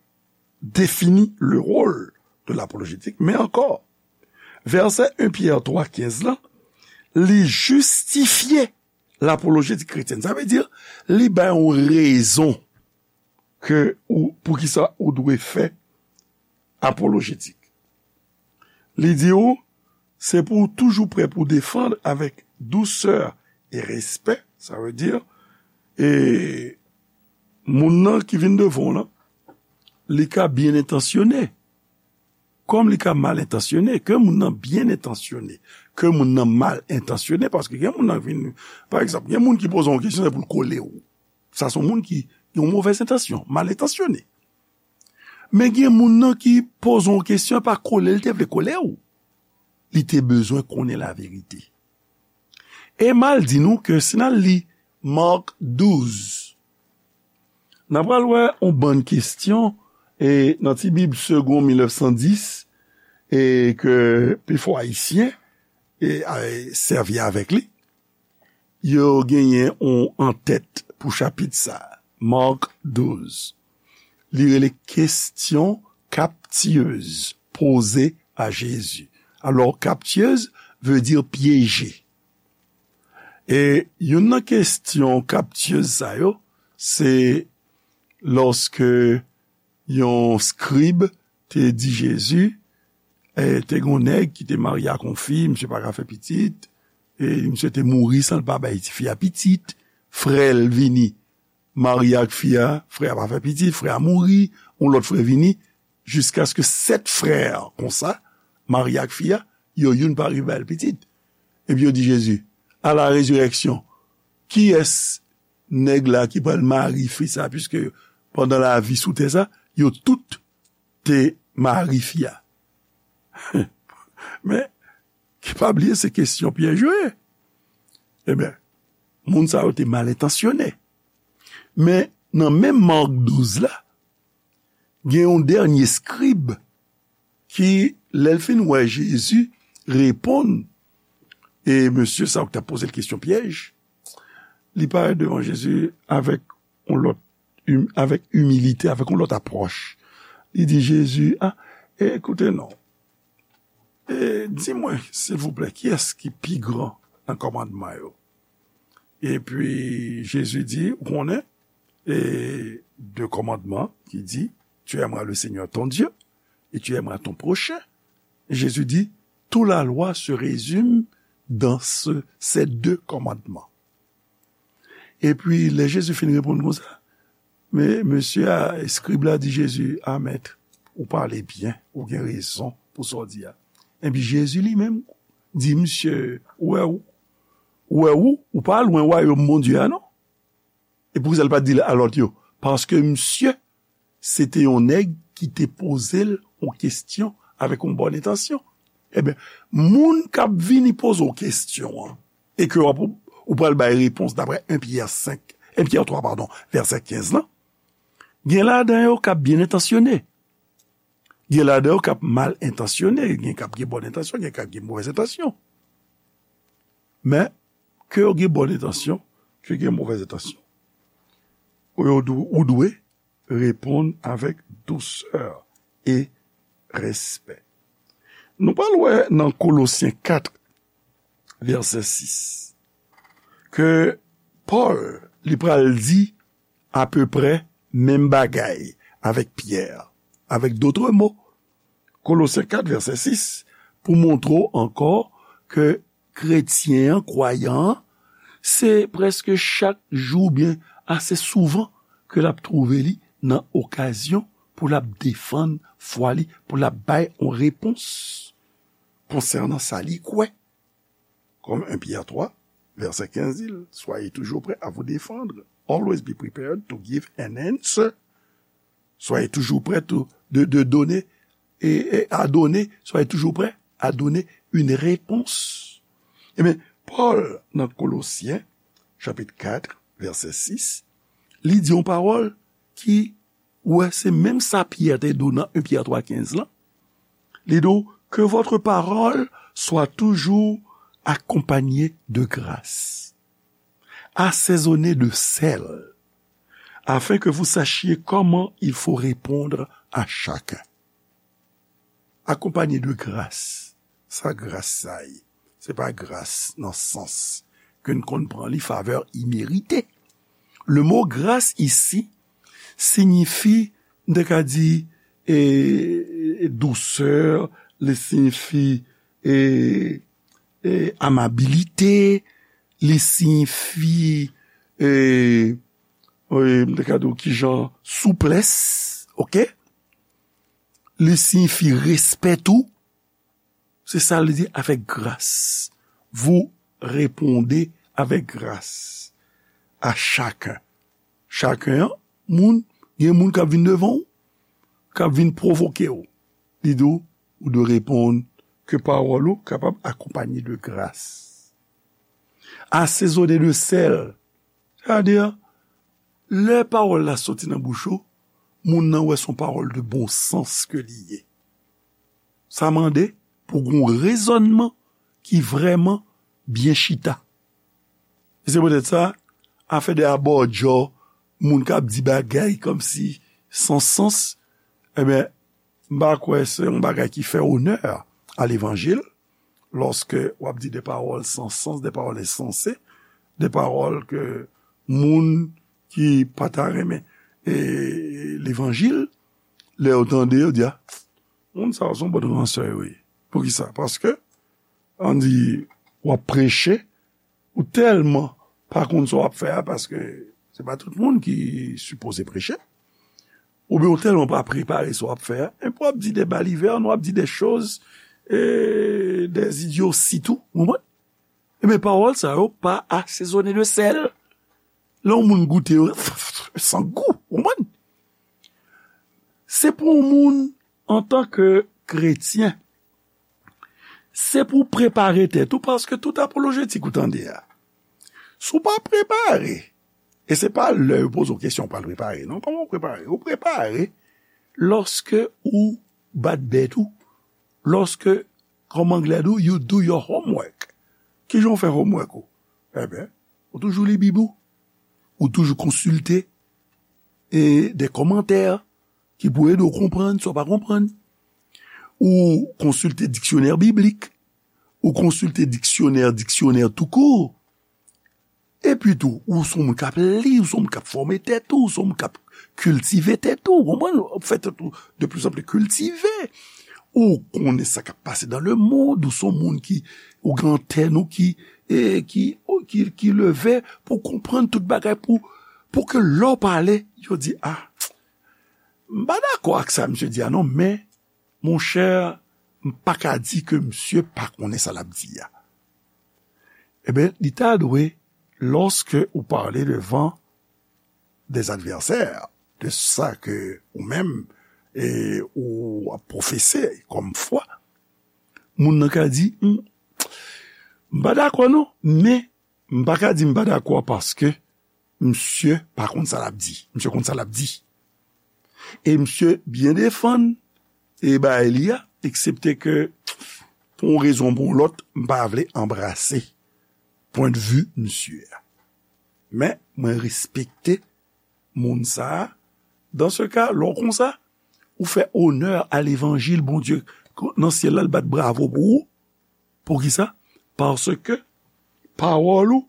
defini le rôle de l'apologétique, men ankò, vèsè en Pyè twa kenz la, li jistifye lapolojetik kretyèn. Sa vle di, li bay yon rezon ke ou, poukisa ou dwe fè apolojetik. Li di ou, se pou ou toujou prè pou defann avèk dousè e respè, sa vle di, e moun nan ki vin devan w lan, li ka byen entansyone, kòm li ka mal entansyone, ke moun nan byen entansyone, ke moun nan mal entansyone, paske gen moun nan vin, pa egzanp, gen moun ki poze yon kesyon, se pou l kole w. Sa se yon moun ki gen yon movèz entansyon, mal entansyone. Men gen moun nan ki poze yon kesyon, pa kole l te vle kole w. Li te bezwen konnen laverite. E m al di nou ke si n al li Mark douz, n a pral wè yon bann kesyon, e nan ti Bib Segond mil nèf san dis, e ke pifò Ayisyen, e, a, sèvi avèk li, yo genyen yon antèt pou chapit sa, Mark douz. Li rele kesyon kaptiyez poze a Jezi. Alò, kaptiyez vle di pyeje. E youn nan kesyon kaptiyez sa yo, se lòske yon skrib te di Jezi, e, te gen yon nèg ki te marye ak yon fi, misye pa ka fè pitit, e misye te mouri san l pa bay tifi a pitit, frè l vini marye ak fi a, frè a pa fè pitit, frè a mouri, yon lòt frè vini, jiskaske sèt frè konsa marye ak fi a, yo youn pa rive ba l pitit. Epi yo di Jezi, à la résurrection, kiyès nèg la ki pral mari fi sa, piske pandan lavi sou tè sa, yo tout te mari fi a. Men, ki pa bliye, se kesyon pyèj yo ye. Ebyen, moun sa yo te mal entansyone. Men, nan menm Mark douz la, gen yon dènye skrib ki, lè l fin wè Jezi reponn, e mesye sa yo ki t ap poze l kesyon pyèj, li parèt devan Jezi avèk yon lòt, im-, avèk imilite, avèk yon lòt apwòch. Li di Jezi, a, e, koute non, e, di mwen, silvouplè, kiyès ki pi gran nan kòmandman yo? Epi Jezi di, ou konnen, e, de kòmandman ki di, tu aimeras le Seigneur ton Dieu et tu aimeras ton prochain. Jezi di, toute la loi se résume dans ce, ces deux commandements. Epi, lè Jezi fin reponn konsa, men mesye a, eskrib la di Jezi, a mèt, ou pale byen, ou gen rezon pou sa w di a. Epi Jezi li menm di misye, ou wè ou, ou wè ou, ou pa lwen wayòm Bondye a non. E poukisa l pa t di l a lòt yo? Paske misye, se te yon nèg ki te poze l yon kesyon avèk yon bòn entansyon. Ebyen, moun k ap vini poze w kesyon an, e ke w ap, ou pral bay repons daprè en Pyè senk, en Pyè twa, padon, vèsè kenz lan, gen ladan yo k ap byen entansyone. Gen ladan yo k ap mal entansyone, gen k ap gen bòn entansyon, gen k ap gen movèz entansyon. Men, ke yo gen bòn entansyon, ke gen movèz entansyon, ou yo dwe, ou dwe reponn avèk dousè e respè. Nou pral wè nan Kolosyen kat, vèsè sis, ke Pòl, li pral di apeprè menm bagay avèk Pyè. Avèk dòt mo, Kolosyen kat, vèsè sis, pou montre w ankò ke kretyen an, kwayan an, se prèske chak jou oubyen ase souvan ke l ap twouve li nan okazyon pou l ap defann fwa li, pou l ap bay yon repons konsènan sa li kwè. Kòm en Pyè twa, vèsè kenz di l, soyez toujours prêts à vous défendre Always be prepared to give an answer. Soyez toujours prêts to- de, de donner et, et à donner. Soyez toujours prêts à donner une réponse. Ebyen, Pòl nan Kolosyen, chapit kat, vèsè sis, li di yon pawòl ki, ou wè, se menm sa Pyè te di w nan en Pyè twa kenz lan. Li di w, que votre parole soit toujours accompagnée de grâce, assaisonnée de sel, afin que vous sachiez comment il faut répondre à chacun. Accompagné de grâce. Sa gras sa ye? Se pa gras nan sans ke n konn pran li, favè imerite. Le mot grâce ici signifie, m te ka di, e, dousè, li siyifi, e, e, amabilite, li siyifi, e, e, m te ka di w kijan, souplès, oke? Li siyifi respè tou. Se sa li di, avec grâce. Vous répondez avec grâce à chacun. Chacun, an, moun, gen moun k ap vin devan w, k ap vin pwovoke w. Li di w, ou dwe reponn ke pawòl ou kapab akonpanye de gras. Asezone de sèl. Sa vle di, lè pawòl la soti nan bouch ou, moun nan wè se yon pawòl de bon sans ke li ye. Sa mande pou gen yon rezònman ki vrèman byen chita. E se poutèt sa, afè de abòdjò, moun k ap di bagay kòmsi san sans, ebyen, m pa kwè se yon bagay ki fè onè a levanjil, lòske w ap di de pawòl san sans, de pawòl ensanse, de pawòl ke moun ki pa ta renmen, e, levanjil, lè yo tande, yo di, a, moun sa yo se yon bann ransè yo ye. Poukisa? Paske, ann di, w ap preche, ou tèlman pa konn sa w ap fè a, paske se pa tout moun ki sipoze preche, oubyen ou tèlman pa prepare sa w ap fè a, epi w ap di de balivèn, w ap di de choz, e, de idyosi tou, ou konprann? Ebyen, pawòl sa yo pa asezone de sèl. Lè yon moun goute yo, san gou, ou konprann? Se pou yon moun, antanke kretyen, se pou w prepare tèt ou, paske tout apolojetik ou tande a, si w pa prepare, e se pa lè yo poze w kesyon w pral prepare, non, kòman w prepare? Ou prepare lòske ou bat bèt ou, lòske, kòm anglè di w, you do your homework. Kijan w fè homework ou? Ebyen, ou toujou li Bib ou, ou toujou konsilte, e, de kòmantè ki pou ede w konprann sa w pa konprann. Ou konsilte diksyonè biblik, ou konsilte diksyonè, diksyonè tou kou. Epi tou, ou se yon moun k ap li, ou se yon moun k ap fòme tèt ou, ou se yon moun k ap kiltive tèt ou, ou konprann? W ap fè tèt ou de plus en plus kiltive. Ou konnen sa k ap pase dans le monde, ou se yon moun ki, ou gen antèn ou ki, e, ki, ki, ki leve pou konprann tout bagay, pou, pou ke lè w pale, yo di, a, m pa dakò ak sa misye di a non, men, monchè, m pa ka di ke misye pa konnen sa l ap di a. Ebyen, li ta dwe, lòske ou pale devan des advèsè, de sa ke ou menm, e, ou ap pwofese kòm fwa, moun nan ka di, "M, m pa dakò non, men m pa ka di m pa dakò paske misye pa konn sa l ap di. Misye konn sa l ap di." E misye byen defann e bagay li a, eksepte ke pou yon rezon ou pou yon lòt, m pa vle anbrase pwendvi misye a. Men, mwen respekte moun sa a. Dan se ka, lè w konsa, ou fè onè a levanjil Bondye nan syèl la, l bat bravo pou ou. Poukisa? Paske pawòl ou,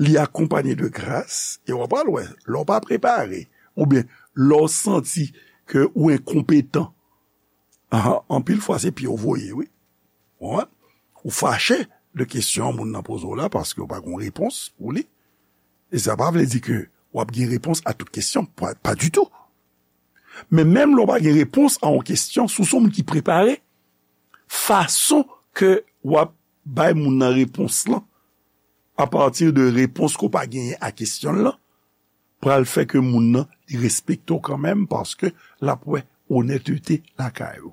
li akonpanye de gras, e w ap al wè, lè w pa prepare, oubyen lè w santi ke ou enkonpetan, a, anpil fwa se pye w voye, wi. Ou konprann? Ou fache de kesyon moun nan poze w la paske w pa gen repons pou li. E sa pa vle di ke w ap gen repons a tout kesyon, pa, pa ditou. Men menm lè w pa gen repons a yon kesyon, si w se yon moun ki prepare, fason ke w ap bay moun nan repons lan, apati de repons ke w pa genyen a kesyon l lan, pral fè ke moun nan li respekte w kanmenm, paske l ap wè onètete lakay ou.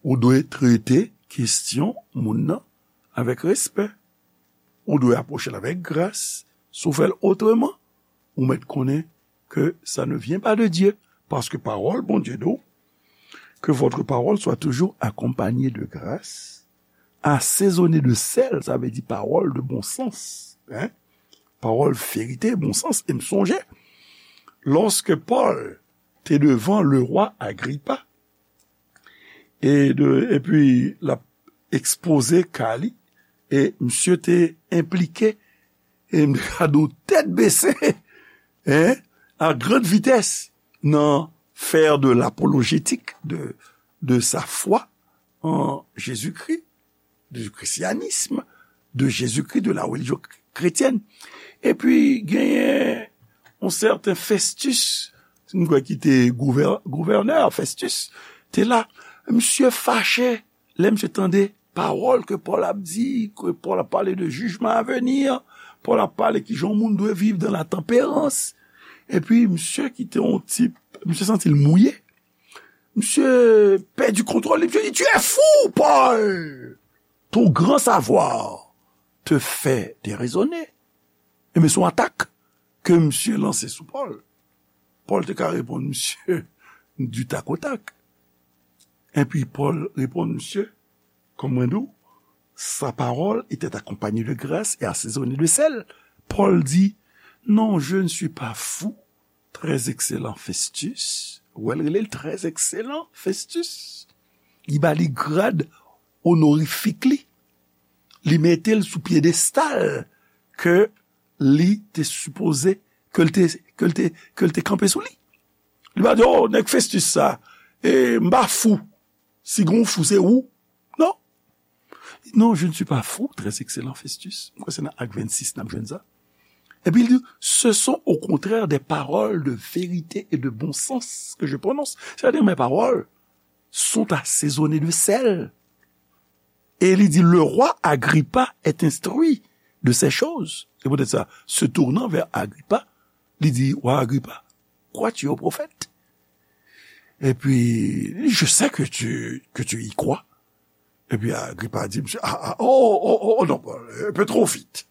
Ou dwe trete kesyon moun nan avèk respè. Ou dwe apwoche l avèk gras. Si w fè l otreman, ou mèt konnen que ça ne vient pas de Dieu, parce que parole Bondye di w, que votre parole soit toujours accompagnée de grâce, assaisonnée de sel, sa vle di pawòl de bon sans, hein? Pawòl verite, bon sans. E m sonje, lòske Pòl te devan le rwa Agripa, e de, epi l ap ekspoze ka li, e misye te enplike, e m ka di w tèt bese, hein, à grande vitesse, nan faire de l'apologétique de, de sa foi en Jésus-Christ, du christianisme, de Jésus-Christ, de la religion chrétienne. Epi genyen yon sèten Festus, m kwè ki te gouvè-, gouvènè Festus, te la. Misye fache lè misye tande pawòl ke Pòl ap di, ke Pòl ap pale de jijman a veni, Pòl ap pale kijan yon moun dwe viv dans la tempérance. Epi misye ki te yon tip, misye santi l mouye. Misye pèdi kontwòl li, misye di, "Tu es fou, Paul! Ton grand savoir te fait déraisonner." Ebyen, se yon atak ke misye lanse sou Pòl. Pòl te ka reponn misye du tac au tac. Epi Pòl reponn misye, kòm mwen di w, sa parole était accompagnée de grâce et assaisonnée de sel. Pòl di, "Non, je ne suis pas fou, très excellent Festus." Ou wè l rele l très excellent Festus. Li ba li grad onorifik li. Li mete l sou pyedestal ke li te sipoze, ke l te, ke l te, ke l te kanpe sou li. Li pa di, "Oh, nèg Festus sa, e m pa fou. Si gen yon fou, se ou." Non. "Non, je ne suis pas fou, très excellent Festus." M kwè se nan Ak vennsis n ap jwenn sa. Epi li di, "Ce sont au contraire des paroles de vérité et de bon sens que je prononce." Sètadi, mes paroles sont assaisonnées de sel. E li di, "Le roi Agrippa est instruit de ces choses." Se poutèt sa, se tournant vers Agrippa, li di, "Wa Agripa, crois-tu au prophète?" Epi, "Je sais que tu, que tu y crois." Epi Agripa di, "Misye, ah, ah, oh, oh, oh, oh, non, un peu trop vite.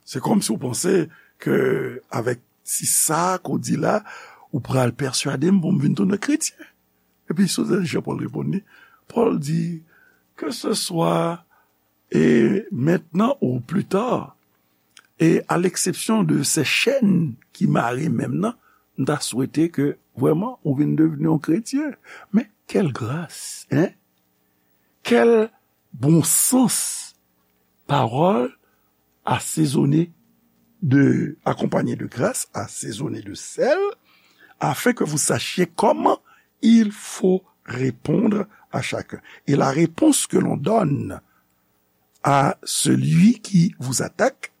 Se kòmsi w panse ke avèk ti sa ke w di la, ou pral pèswade m pou m vin tounen kretyen." Epi, sou sa, Jan Pòl reponn li, Pòl di, "Que ce soit et maintenant ou plus tard, et à l'exception de ces chaînes ki mare men m nan, m ta swete ke vrèman ou vin devni yon kretyen." Men, quelle grâce, hein? Quel bon sens! Parole assaisonnée de, accompagnée de grâce, assaisonnée de sel, afin que vous sachiez comment il faut répondre à chacun. Et la réponse que l'on donne à celui qui vous attaque,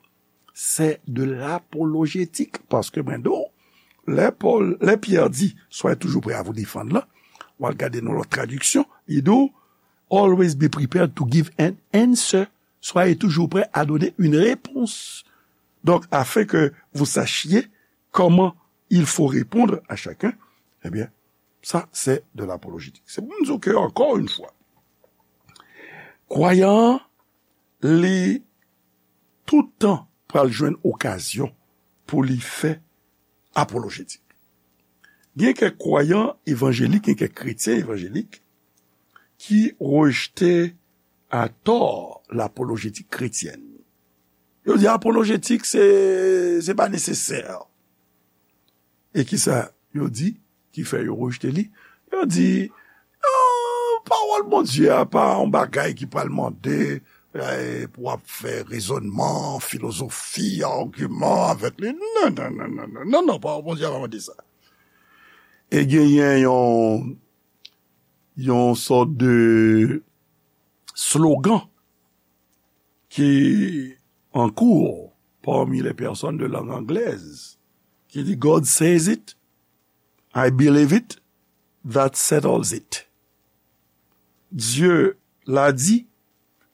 c'est de l'apologétique. Paske mwen di w, lè Pòl, lè Pyè di, "Soyez toujours prêts à vous défendre" la, w al gade nan lòt tradiksyon, li di w, "Always be prepared to give an answer." Soyez toujours prêts à donner une réponse. Donc, afin que vous sachiez comment il faut répondre à chacun, eh bien, ça, c'est de l'apologétique. Se pou m di w ke, ankò yon fwa, kwayan an, li tout tan pral jwenn okazyon pou li fè apolojetik. Gen kèk kwayan evanjelik, gen kèk kretyen evanjelik ki rejte atò lapolojetik kretyèn. Yo di apolojetik se, se pa nesesè. E kisa yo di ki fè yo rejte li? Yo di, "Ah, pawòl Bondye a pa yon bagay ki pral mande, eh, pou w ap fè rezònman, filozofi, agiman avèk li." Non, non, non, non, non, non, non, pawòl Bondye a pa mande sa. E genyen yon, yon sòt de slogan ki an kou pami les personnes de langue anglaise, ki di, "God says it, I believe it, that settles it." Dieu l'a dit,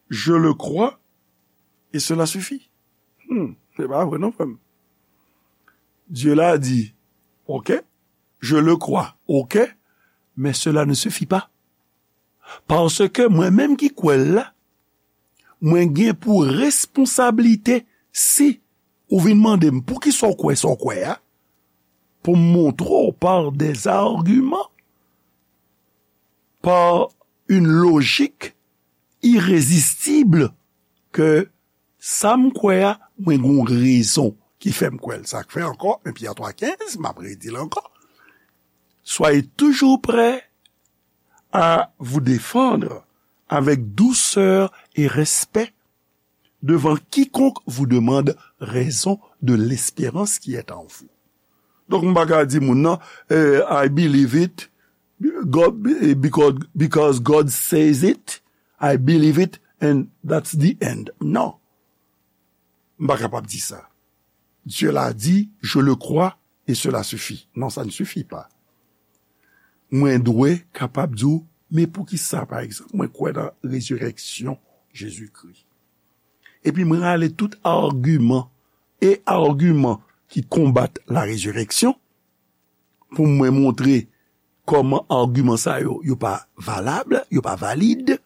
je le crois, et cela suffit. Hmm, se pa vre non, frè m. Dieu l'a dit, ok, je le crois, ok, mais cela ne suffit pas. Paske mwen menm ki kwè l la, mwen gen pou responsablite si ou vin mande m poukisa w kwè sa w kwè a, pou m montre w par des arguments, par une logique irrésistible, ke sa m kwè a, mwen gen yon rezon ki fè m kwè l. Sa k fè ankò, en Pyè twa kenz, m ap redi l ankò, soyez toujours prêts à vous défendre avec douceur et respect devant quiconque vous demande raison de l'espérance qui est en vous. Donk, m pa ka di moun nan, eh, I believe it, God, eh, because, because God says it, I believe it, and that's the end. Non. M pa kapab di sa. Dieu l'a dit, je le crois, et cela suffit. Non, ça ne suffit pas. Mwen dwe kapab di w, men poukisa, pa egzanp, mwen kwè nan rezirèksyon Jezikri. Epi mwen rale tout agiman e agiman ki konbat la résurrection pou mwen montre kòman agiman sa yo, yo pa valab, yo pa valid.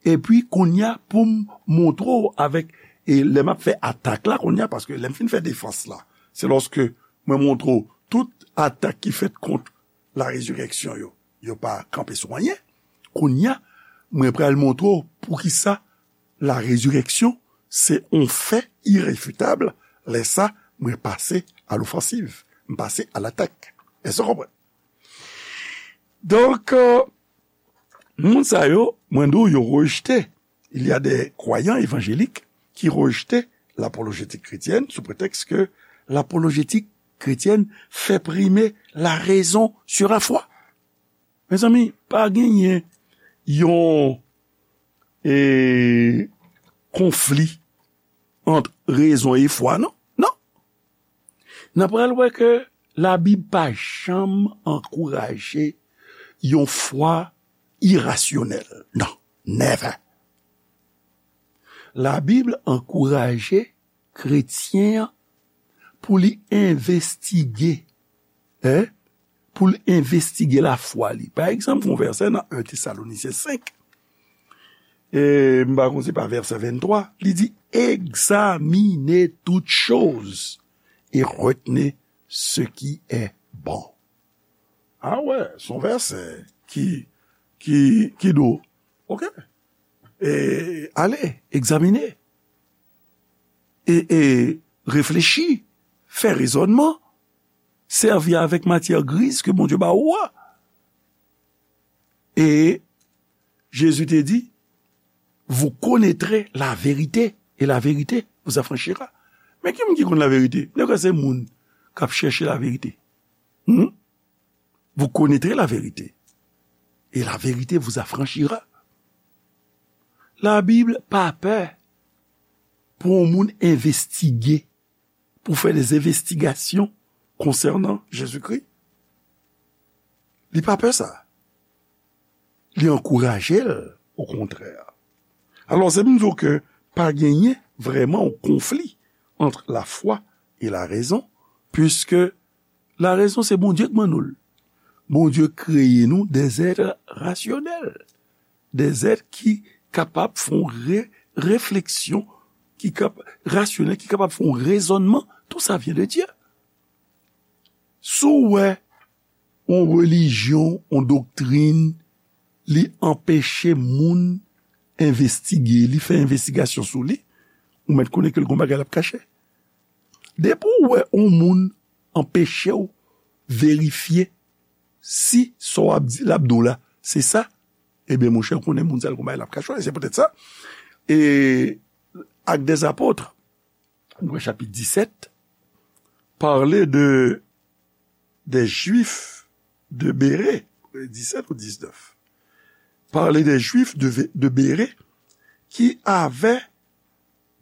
Epi kounye a, pou m montre w avèk, e lè m ap fè atak la kounye a, paske lè m fin fè defans la, se lòske mwen montre w tout atak ki fèt kont la résurrection yo, yo pa kanpe sou anyen. Kounye a, mwen pral montre w poukisa la résurrection se yon fè irefitab. Lè sa, mwen pase a lofansiv, m pase a latak. Èske w konprann? Donk, euh, moun sa yo, mwen di w, yo rejte. Il y a des croyants évangéliques qui rejte l'apologétique chrétienne sous prétexte que l'apologétique chrétienne fait primer la raison sur la foi. Mezanmi, pa genyen yon, e, konfli ant rezon e fwa, non. Non. N ap pral wè ke Labib pa janm ankouraje yon fwa irasyonèl. Non, never. Labib ankouraje kretyen an pou li envestige, en, pou l envestige lafwa li. Pa egzanp, yon vèsè nan en Tesalonisyen senk, e m pa konn si se pa vèsè venntwa, li di, examinez toutes choses et retenez ce qui est bon. A wè, se yon vèsè ki, ki, ki dou. Ok. E, ale, egzamine. E, e, reflechi, fè rezònman, sèvi avèk matyè griz ke Bondye ba ou a. E Jezi te di, vous connaîtrez la vérité, et la vérité vous affranchira. Men ki moun ki konn laverite? Nèg se moun k ap chèche laverite. Hmm? Vous connaîtrez la vérité, et la vérité vous affranchira. Labib pa pè pou yon moun envestige, pou fè des investigations concernant Jésus-Christ. Li pa pè sa. Li ankouraje l, okontrè. Alò, se pou m di w ke pa genyen vrèman yon konfli ant lafwa e larezon, puiske larezon se Bondye k ban nou l. Bondye kreye nou des êtres rationnels, des êtres ki kapab fè yon re-, refleksyon, ki kap-, rasyonèl, ki kapab fè yon rezònman. Tout ça vient de Dieu. Si w wè yon relijyon, yon doktrin, li anpeche moun envestige, li fè envestigasyon sou li, ou mèt konnen ke l gon bagay l ap kache. Depi w wè yon moun anpeche w verifye si sa w ap di, l ap di w la, se sa, ebyen, monchè, ou konnen moun sa l gon bagay l ap kache w. E se poutèt sa, e Actes des Apôtres, nou wè chapit disèt, pale de, des Juifs de Bérée, disèt ou diznèf. Parler des Juifs de, de Bérée qui avaient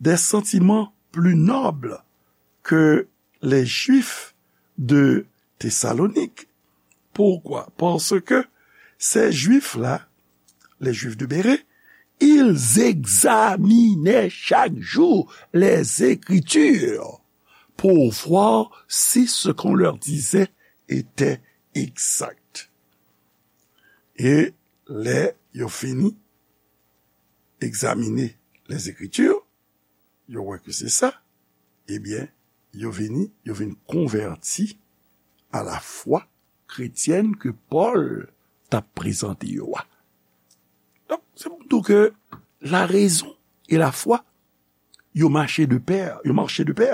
des sentiments plus nobles que les Juifs de Thessalonique. Pourquoi? Parce que ces Juifs-là, les Juifs de Bérée, ils examinaient chaque jour les Écritures pour voir si ce qu'on leur disait était exact. E lè yo fini egzamine Lèzekriti, yo wè ke se sa, ebyen, yo vini, yo vin konvèti a la fwa kretyèn ke Pòl t ap prezante yo a. Donk, se pou di w ke larezon e lafwa, yo mache de pè, yo mache de pè.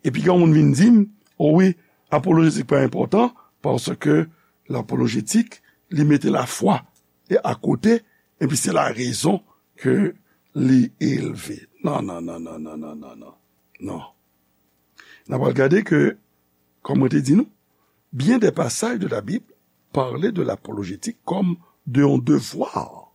Epi gen yon moun vin di m, o wi, apolojetik pa enpòtan, paske lapolojetik, li mete lafwa e akote, epi se larezon ke li elve. Non, non, non, non, non, non, non, non. Non. N a pral gade ke, kòm mwen te di nou, bien des passages de la Bible parlent de l'apologétique comme de yon devwa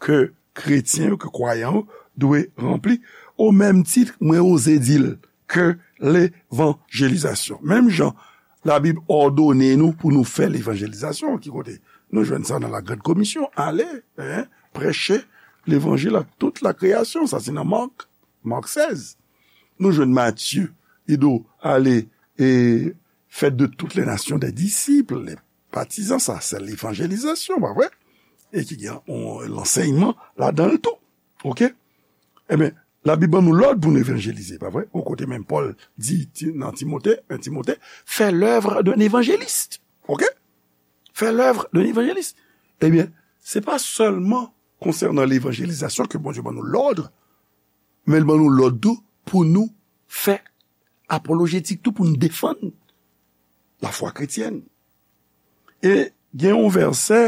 ke kretyen yo, ke kwayan yo dwe ranpli. O menm tit, mwen oze di l ke levanjelizasyon. Menm jan Labib òdone nou pou nou fè levanjelizasyon, ki kote? Nou jwenn sa nan la Grande Commission, ale, hein, prêcher l'évangile à toute la création, sa se nan Mak, Mak sèz. Nou jwenn Matye, li di w, ale, e faites de toutes les nations des disciples, les baptisants, sa se levanjelizasyon, pa vre? E ki gen yon lansèyman ladan l tou. Oke? Ebyen, Labib ban nou lòd pou nou evanjelize, pa vre? Yon kote menm Pòl di Ti-, nan Timote, en Timote, fais l'œuvre d'un évangéliste. Oke? Fais l'œuvre d'un évangéliste. Ebyen, se pa sèlman konsènan levanjelizasyon ke Bondye ban nou lòd, men l ban nou lòd tou pou nou fè apolojetik tou, pou nou defann lafwa kretyèn. E gen yon vèsè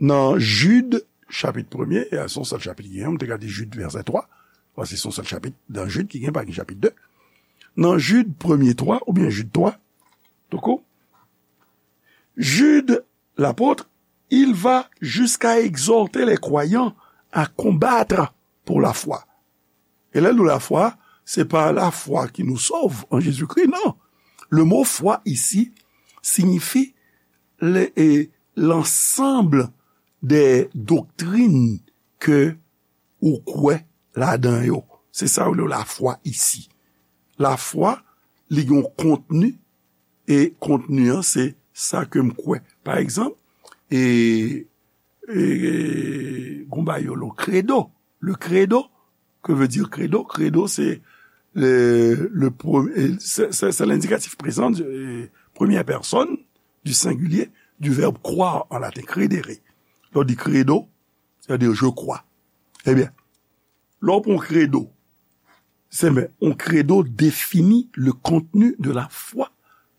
nan Jid, chapit premye, e se yon sèl chapit ki gen, m te ka di Jid vèsè twa, paske se yon sèl chapit nan Jid ki gen, pa gen chapit de. Nan Jid premye twa, oubyen Jid twa, tout kou, Jude, l'apôtre, il va jusqu'à exhorter les croyants à combattre pour la foi. E lè l di lafwa, se pa lafwa ki nou sove an Jezikri, non. Le mot foi ici signifie le, e, l'ensemble des doctrines ke ou kwè ladan yo. Se sa yo rele lafwa isi. Lafwa, li gen yon kontni, e kontni an, se sa ke m kwè. Pa egzanp, e, e, e, gon bagay yo rele credo. Le credo, que veut dire credo? Credo, c'est le, le pre-, c'est, c'est, c'est l'indicatif présent de, euh, première personne du singulier du verbe croire en latin, credere. Lè w di credo, c'est-à-dire je crois. Ebyen, lè w pran yon credo, se men, yon credo définit le contenu de la foi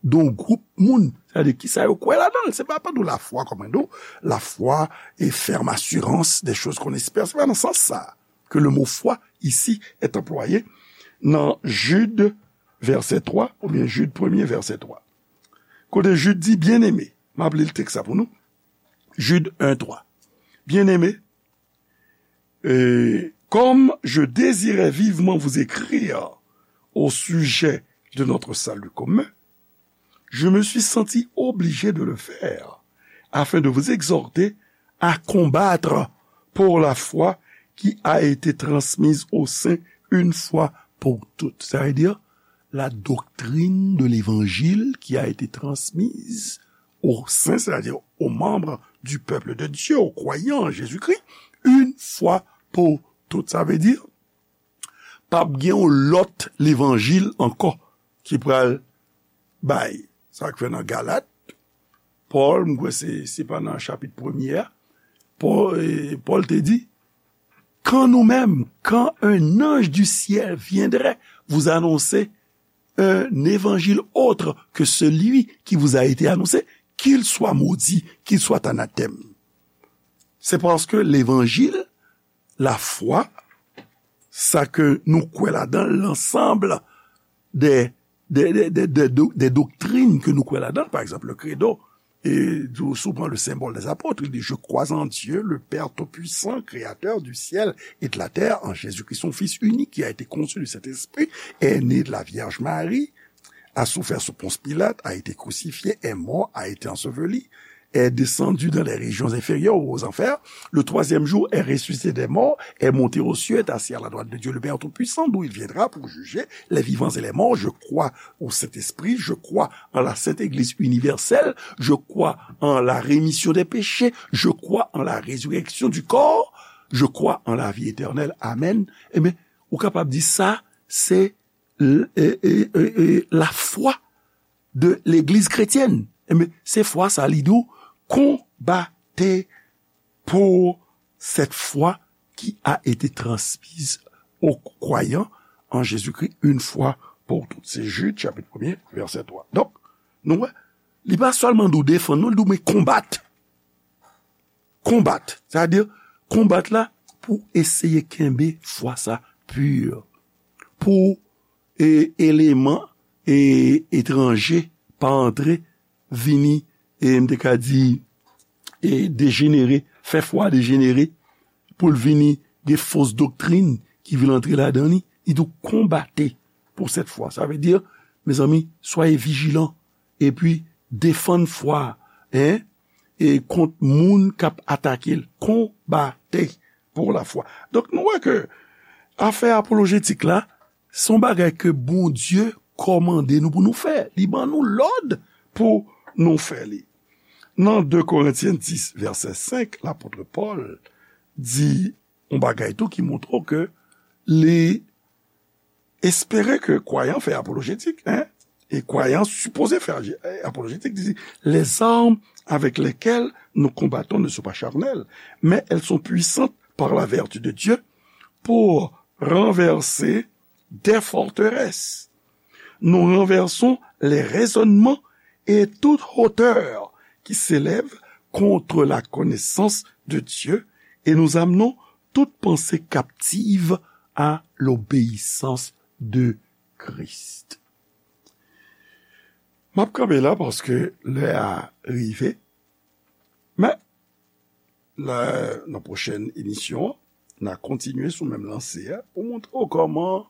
d'un groupe moun. Sètadi, kisa yo kwè ladan l. Se pa, pa tou lafwa, kòm mwen di w, lafwa e ferme assurance des choses qu'on espère. Se pa nan sans sa ke le mot foi ici est employé nan Jude, vèsè twa, oubyen Jude premye, vèsè twa. Kote Jude di, bien-aimé, m ap li l tèks sa pou nou. Jude un twa. Bien-aimé, euh, comme je désirais vivement vous écrire au sujet de notre salut commun, je me suis senti obligé de le faire afin de vous exhorter à combattre pour la foi qui a été transmise aux saints une fois pour toutes. Ça veut dire, la doctrine de l'évangile qui a été transmise aux saints, c'est-à-dire aux membres du peuple de Dieu, aux croyants en Jésus-Christ, une fois pour toutes. Sa vle di, p ap gen yon lòt levanjil ankò ki pral bay. Sa k fè nan Galat, Pòl, m kwè se, se pa nan chapit premye a, Pòl, e, Pòl te di, quand nous-mêmes, quand un ange du ciel viendrait vous annoncer un évangile autre que celui qui vous a été annoncé, qu'il soit maudit, qu'il soit anathème. C'est parce que l'évangile, la foi, sa ke nou kwè ladan, l'ensemble des, des, des, des, des do-, des doctrines ke nou kwè ladan, pa egzanp, le credo, e di w, si w pran le symbole des apôtres, il dit, je crois en Dieu, le Père tout-puissant, créateur du ciel et de la terre, en Jésus-Christ, son Fils unique, qui a été conçu du Saint-Esprit, est né de la Vierge Marie, a souffert sous Ponce Pilate, a été crucifié, est mort, a été enseveli, est descendu dans les régions inférieures, aux enfers. Le troisième jour est ressuscité des morts, est monté aux cieux, est assis à la droite de Dieu le Père Tout-Puissant, d'où il viendra pour juger les vivants et les morts. Je crois au Saint-Esprit, je crois en la Sainte Église universelle, je crois en la rémission des péchés, je crois en la résurrection du corps, je crois en la vie éternelle. Amen. Ebyen, ou kapab di sa, se l- e- e- e- e- lafwa de legliz kretyèn. Ebyen, se fwa sa li di w, combattez pour cette foi qui a été transmise aux croyants en Jésus-Christ une fois pour toutes. Se Jid, chapit premye, vèsè twa. Donk, nou wè, li pa sèlman di w defann, non, li di w men konbat. Konbat. Sa vle di, konbat la pou eseye kenbe fwa sa pi. Pou e, eleman e, etranje pa antre, vini, e m te ka di, e dejenere, fè fwa dejenere, pou l vini gen fos doktrin ki vin antre ladan li, li tou konbate pou sèt fwa. Sa vle di, mezanmi, soyez vigilants, epi defann fwa, en, e kont moun k ap atake l. Konbate pou lafwa. Donk, nou wè ke afè apolojetik la, se yon bagay ke Bondye kòmande nou pou nou fè. Li ban nou lòd pou nou fè li. Nan de Korentyen dis, vèsè senk, lapot Pòl di yon bagay tou ki montre w ke li espere ke kwayan fè apolojetik, en? E kwayan sipoze fè aje- apolojetik, di, les armes avec lesquelles nous combattons ne sont pas charnelles, mais elles sont puissantes par la vertu de Dieu pour renverser des forteresses. Nous renversons les raisonnements et toute hauteur qui s'élève contre la connaissance de Dieu et nous amenons toute pensée captive à l'obéissance de Christ. M ap kanpe la paske lè a rive. Men, la, nan pwochèn emisyon, n a kontinye sou menm lanse a pou montre w kòman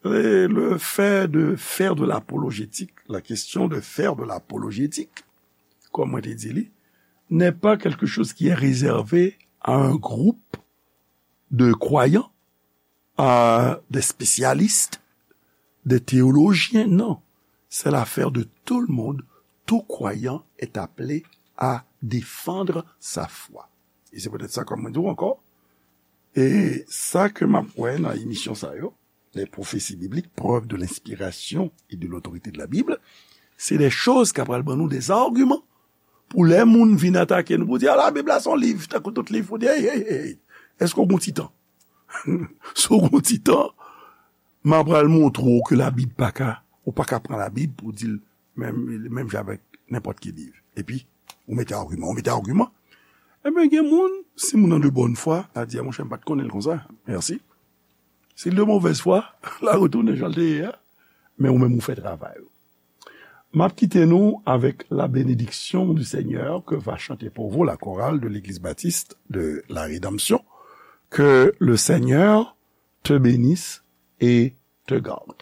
le, le fait de faire de l'apologétique, la question de faire de l'apologétique, comme on dit, n'est pas quelque chose qui est réservé à un groupe de croyants, à des spécialistes, des théologiens, non. C'est l'affaire de tout le monde. Tout croyant est appelé à défendre sa foi. E se poutèt sa, kòm mwen di w ankò, e sa ke m ap wè nan emisyon sa yo, les prophéties bibliques, preuves de l'inspiration et de l'autorité de la Bible, se de choz k ap pral ban nou de agiman pou lè moun vin atake nou, pou di, a, Labib la se yon liv, tankou tout liv, pou di, hey, hey, hey, hey, èske w gen ti tan? Si w gen ti tan, m ap pral montre w ke Labib pa ka, ou pa ka pran Labib pou di l menm, menm jan avèk nenpòt ki liv. Epi, ou mete agiman, ou mete agiman. Ebyen, gen moun, si moun nan de bòn fwa, a di, a, monchè, m pa t konnen l konsa. Mèsi. Si l de movèz fwa, l a retounen jan l te ye a. Men ou menm, ou fè travay ou. M ap kite nou avec la bénédiction du Seigneur que va chanter pour vous la chorale de l'Église Baptiste de la Rédemption. Que le Seigneur te bénisse et te garde.